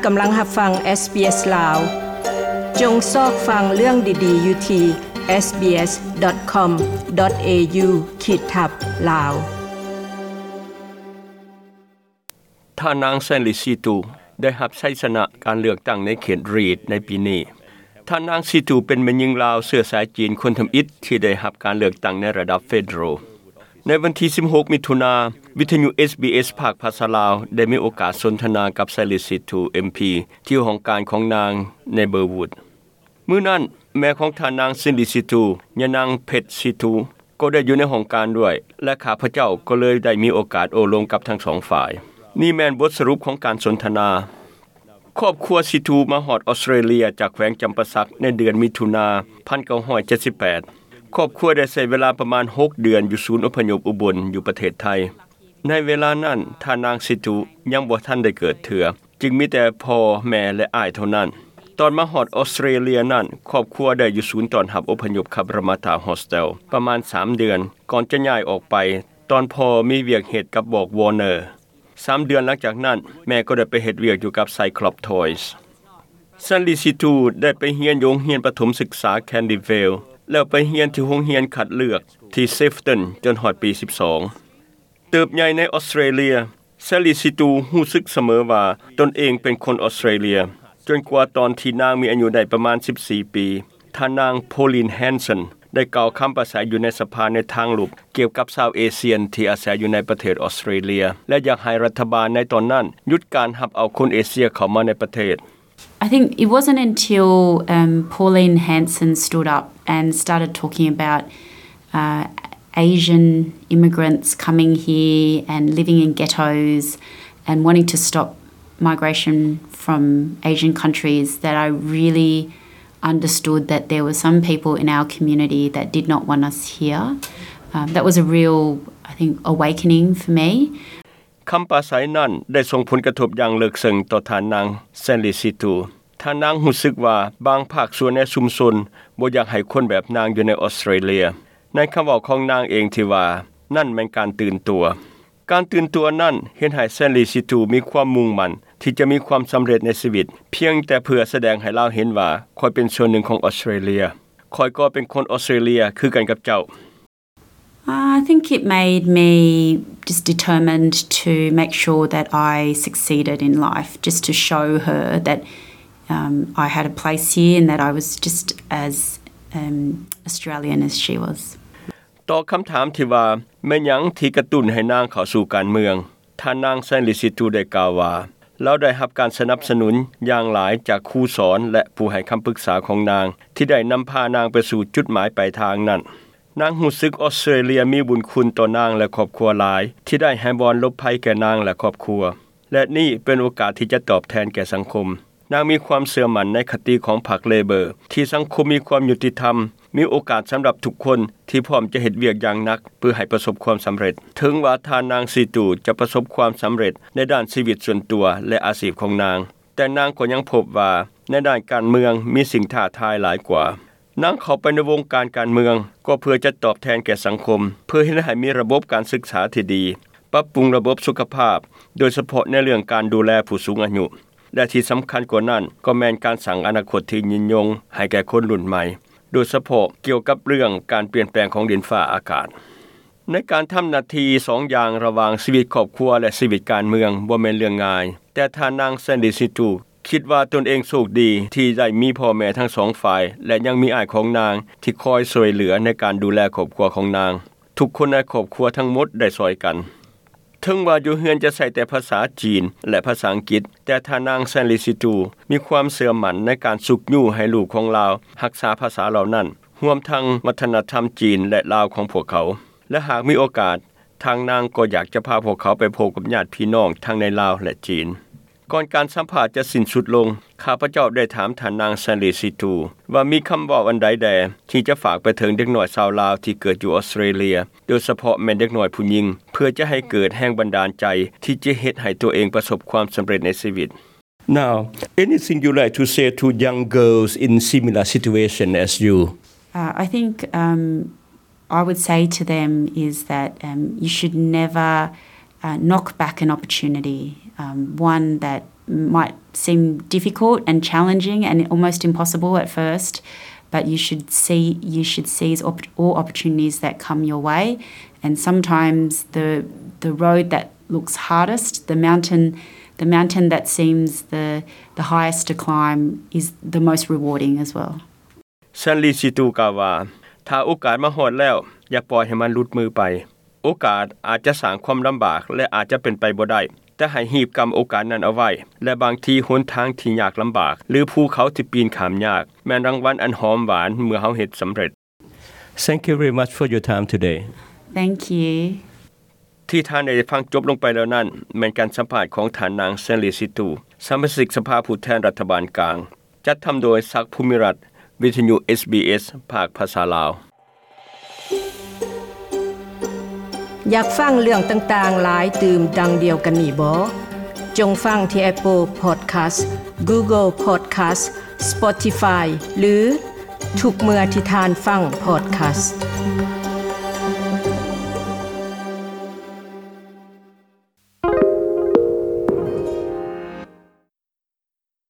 ກຳລັງຮັບຟັງ SBS ລາວ. ຈົ່ງຊອກຟັງເລື່ອງດີໆຢູ່ທີ່ SBS.com.au ຂີດທັບ ລາວ. ທ່ານນາງ ແຊນລີ ຊີຕູ ໄດ້ຮັບໄຊຊະນະການເລືອກຕັ້ງໃນເຂດຣີດໃນປີນີ້. ທ່ານນາງ ຊີຕູ ເປັນແມ່ຍິງລາວເຊື້ອສາຍຈີນຄົນທຳອິດທີ່ໄດ້ຮັບການເລືອກຕັ້ງໃນລະດັບເຟເດີຣອລ. ໃນວັນທີສິບຫົກ ມິຖຸນາ, ວິທະຍຸ SBS ພາກພາສາລາວ ໄດ້ມີໂອກາດສົນທະນາກັບ ແຊນລີ ຊີຕູ ເອັມພີ ທີ່ຫ້ອງການຂອງນາງໃນເບີວູດ. ມື້ນັ້ນ, ແມ່ຂອງທ່ານນາງ ແຊນລີ ຊີຕູ ຍານາງ ເພັດ ຊີຕູ ກໍໄດ້ຢູ່ໃນຫ້ອງການດ້ວຍ ແລະ ຂ້າພະເຈົ້າກໍເລີຍໄດ້ມີໂອກາດໂອ້ລົມກັບທັງສອງຝ່າຍ. ນີ້ແມ່ນບົດສະຫຼຸບຂອງການສົນທະນາ. ຄອບຄົວຊີຕູມາຮອດອອສເຕຣເລຍຈາກແຂວງຈຳປາສັກໃນເດືອນມິຖຸນາ ພັນເກົ້າຮ້ອຍເຈັດສິບແປດ. ຄອບຄົວໄດ້ໃຊ້ເວລາປະມານຫົກເດືອນຢູ່ສູນອົບພະຍົບອຸບົນ ຢູ່ປະເທດໄທ. ໃນເວລານັ້ນ, ທ່ານນາງຊີຕູຍັງບໍ່ທັນໄດ້ເກີດເທື່ອ, ຈຶ່ງມີແຕ່ພໍ່, ແມ່ ແລະ ອ້າຍເທົ່ານັ້ນ. ຕອນມາຮອດອອສເຕຣເລຍນັ້ນ, ຄອບຄົວໄດ້ຢູ່ສູນຕ້ອນຮັບອົບພະຍົບ Cabramatta Hostel ປະມານສາມເດືອນ ກ່ອນຈະຍ້າຍອອກໄປ ຕອນພໍ່ມີວຽກເຮັດກັບບອກ Warner. ສາມເດືອນຫຼັງຈາກນັ້ນ, ແມ່ກໍໄດ້ໄປເຮັດວຽກຢູ່ກັບ Cyclops Toys. ແຊນລີ ຊີຕູ ໄດ້ໄປຮຽນຢູ່ໂຮງຮຽນປະຖົມສຶກສາ Candyvale ແລ້ວໄປຮຽນທີ່ໂຮງຮຽນຄັດເລືອກທີ່ Sefton ຈົນຮອດປີສິບສອງ. ເຕີບໃຫຍ່ໃນອອສເຕຣເລຍ, ແຊນລີ ຊີຕູ ຮູ້ສຶກສະເໝີວ່າຕົນເອງເປັນຄົນອອສເຕຣເລຍ, ຈົນກວ່າຕອນທີ່ນາງມີອາຍຸໄດ້ປະມານສິບສີ່ປີ, ທ່ານນາງ ໂພລີນ ແຮນສັນ ໄດ້ກ່າວຄຳປາສາຍຢູ່ໃນສະພາໃນທາງລົບກ່ຽວກັບຊາວເອຊຽນທີ່ອາໄສຢູ່ໃນປະເທດອອສເຕຣເລຍ ແລະ ຢາກໃຫ້ລັດຖະບານໃນຕອນນັ້ນຢຸດການຮັບເອົາຄົນເອເຊຍເຂົ້າມາໃນປະເທດ. I think it wasn't until, um, Pauline Hanson stood up and started talking about, uh, Asian immigrants coming here and living in ghettos and wanting to stop migration from Asian countries that I really understood that there were some people in our community that did not want us here. Um, that was a real, I think, awakening for me. ຄຳປາໄສນັ້ນໄດ້ສົ່ງຜົນກະທົບຢ່າງເລິກເຊິ່ງຕໍ່ທ່ານນາງ ແຊນລີ ຊີຕູ. ທ່ານນາງຮູ້ສຶກວ່າບາງພາກສ່ວນໃນຊຸມຊົນບໍ່ຢາກໃຫ້ຄົນແບບນາງຢູ່ໃນອອສເຕຣເລຍ. ໃນຄຳເວົ້າຂອງນາງເອງທີ່ວ່າ, ນັ້ນແມ່ນການຕື່ນຕົວ. ການຕື່ນຕົວນັ້ນເຮັດໃຫ້ແຊນລີ ຊີຕູ ມີຄວາມມຸ່ງໝັ້ນທີ່ຈະມີຄວາມສຳເລັດໃນຊີວິດ, ພຽງແຕ່ເພື່ອສະແດງໃຫ້ລາວເຫັນວ່າ ຂ້ອຍເປັນສ່ວນໜຶ່ງຂອງອອສເຕຣເລຍ. ຂ້ອຍກໍເປັນຄົນອອສເຕຣເລຍຄືກັນກັບເຈົ້າ. I think it made me just determined to make sure that I succeeded in life, just to show her that, um, I had a place here and that I was just as, um, Australian as she was. ຕໍ່ຄຳຖາມທີ່ວ່າ ແມ່ນຫຍັງທີ່ກະຕຸ້ນໃຫ້ນາງເຂົ້າສູ່ການເມືອງ, ທ່ານນາງ ແຊນລີ ຊີຕູ ໄດ້ກ່າວວ່າ ລາວໄດ້ຮັບການສະໜັບສະໜູນຢ່າງຫຼາຍຈາກຄູສອນ ແລະ ຜູ້ໃຫ້ຄຳປຶກສາຂອງນາງ ທີ່ໄດ້ນຳພານາງໄປສູ່ຈຸດໝາຍປາຍທາງນັ້ນ. ນາງຮູ້ສຶກອອສເຕຣເລຍມີບຸນຄຸນຕໍ່ນາງ ແລະ ຄອບຄົວຫຼາຍ ທີ່ໄດ້ໃຫ້ບ່ອນຫຼົບໄພແກ່ນາງ ແລະ ຄອບຄົວ ແລະ ນີ້ເປັນໂອກາດທີ່ຈະຕອບແທນແກ່ສັງຄົມ. ນາງມີຄວາມເຊື່ອໝັ້ນໃນຄະຕິຂອງພັກເລເບີ ທີ່ສັງຄົມມີຄວາມຍຸຕິທຳ, ມີໂອກາດສຳລັບທຸກຄົນທີ່ພ້ອມຈະເຮັດວຽກຢ່າງໜັກເພື່ອໃຫ້ປະສົບຄວາມສຳເລັດ. ເຖິງວ່າທ່ານນາງ ຊີຕູ ຈະປະສົບຄວາມສຳເລັດໃນດ້ານຊີວິດສ່ວນຕົວ ແລະ ອາຊີບຂອງນາງ, ແຕ່ນາງກໍຍັງພົບວ່າໃນດ້ານການເມືອງມີສິ່ງທ້າທາຍຫຼາຍກວ່າ. ນາງເຂົ້າໄປໃນວົງການການເມືອງກໍເພື່ອຈະຕອບແທນແກ່ສັງຄົມ, ເພື່ອເຮັດໃຫ້ມີລະບົບການສຶກສາທີ່ດີ, ປັບປຸງລະບົບສຸຂະພາບ, ໂດຍສະເພາະໃນເລື່ອງການດູແລຜູ້ສູງອາຍຸ, ແລະ ທີ່ສຳຄັນກວ່ານັ້ນກໍແມ່ນການສ້າງອະນາຄົດທີ່ຍືນຍົງໃຫ້ແກ່ຄົນລຸ້ນໃໝ່, ໂດຍສະເພາະກ່ຽວກັບເລື່ອງການປ່ຽນແປງຂອງດິນຟ້າອາກາດ. ໃນການທຳໜ້າທີ່ສອງຢ່າງລະຫວ່າງຊີວິດຄອບຄົວ ແລະ ຊີວິດການເມືອງບໍ່ແມ່ນເລື່ອງງ່າຍ, ແຕ່ທ່ານນາງ ແຊນລີ ຊີຕູ ຄິດວ່າຕົນເອງໂຊກດີທີ່ໄດ້ມີພໍ່ແມ່ທັງສອງຝ່າຍ ແລະ ຍັງມີອ້າຍຂອງນາງທີ່ຄອຍຊ່ວຍເຫຼືອໃນການດູແລຄອບຄົວຂອງນາງ. ທຸກຄົນໃນຄອບຄົວທັງໝົດໄດ້ຊ່ອຍກັນ. ເຖິງວ່າຢູ່ເຮືອນຈະໃຊ້ແຕ່ພາສາຈີນ ແລະ ພາສາອັງກິດ, ແຕ່ທ່ານນາງ ແຊນລີ ຊີຕູ ມີຄວາມເຊື່ອໝັ້ນໃນການຊຸກຍູ້ໃຫ້ລູກຂອງລາວຮັກສາພາສາເຫຼົ່ານັ້ນ, ຮວມທັງວັດທະນະທຳຈີນ ແລະ ລາວຂອງພວກເຂົາ. ແລະ ຫາກມີໂອກາດ, ທາງນາງກໍຢາກຈະພາພວກເຂົາໄປພົບກັບຍາດພີ່ນ້ອງທັງໃນລາວ ແລະ ຈີນ. ກ່ອນການສຳພາດຈະສິ້ນສຸດລົງ, ຂ້າພະເຈົ້າໄດ້ຖາມທ່ານນາງ ແຊນລີ ຊີຕູ ວ່າມີຄຳເວົ້າອັນໃດແດ່ທີ່ຈະຝາກໄປເຖິງເດັກນ້ອຍຊາວລາວທີ່ເກີດຢູ່ອອສເຕຣເລຍ, ໂດຍສະເພາະແມ່ນເດັກນ້ອຍຜູ້ຍິງ, ເພື່ອຈະໃຫ້ເກີດແຮງບັນດານໃຈທີ່ຈະເຮັດໃຫ້ຕົວເອງປະສົບຄວາມສຳເລັດໃນຊີວິດ. Now, anything you like to say to young girls in similar situation as you? Uh, I think, um, I would say to them is that, um, you should never, uh, knock back an opportunity, um, one that might seem difficult and challenging and almost impossible at first, but you should see you should seize op- all opportunities that come your way. And sometimes the the road that looks hardest, the mountain the mountain that seems the the highest to climb, is the most rewarding as well. ແຊນລີຊີຕູກ່າວວ່າ ຖ້າໂອກາດມາຮອດແລ້ວ ຢ່າປ່ອຍໃຫ້ມັນຫຼຸດມືໄປ. ໂອກາດອາດຈະສ້າງຄວາມລຳບາກ ແລະ ອາດຈະເປັນໄປບໍ່ໄດ້, ແຕ່ໃຫ້ຮີບກຳໂອກາດນັ້ນເອົາໄວ້ ແລະ ບາງທີຫົນທາງທີ່ຍາກລຳບາກ ຫຼື ພູເຂົາທີ່ປີນຂ້າມຍາກ ແມ່ນລາງວັນອັນຫອມຫວານເມື່ອເຮົາເຮັດສຳເລັດ. Thank you very much for your time today. Thank you. ທີ່ທ່ານໄດ້ຟັງຈົບລົງໄປແລ້ວນັ້ນ ແມ່ນການສຳພາດຂອງທ່ານນາງ ແຊນລີຊີຕູ ສະມາຊິກສະພາຜູ້ແທນລັດຖະບານກາງ ຈັດທຳໂດຍ ສັກ ພູມິລັດ ວິທະຍຸ ເອສບີເອສ ພາກພາສາລາວ. ຢາກຟັງເລື່ອງຕ່າງໆຫຼາຍຕື່ມດັ່ງດຽວກັນນີ້ບໍ? ຈົ່ງຟັງທີ່ Apple Podcast, Google Podcast, Spotify ຫຼື ທຸກເມື່ອທີ່ທ່ານຟັງ Podcast.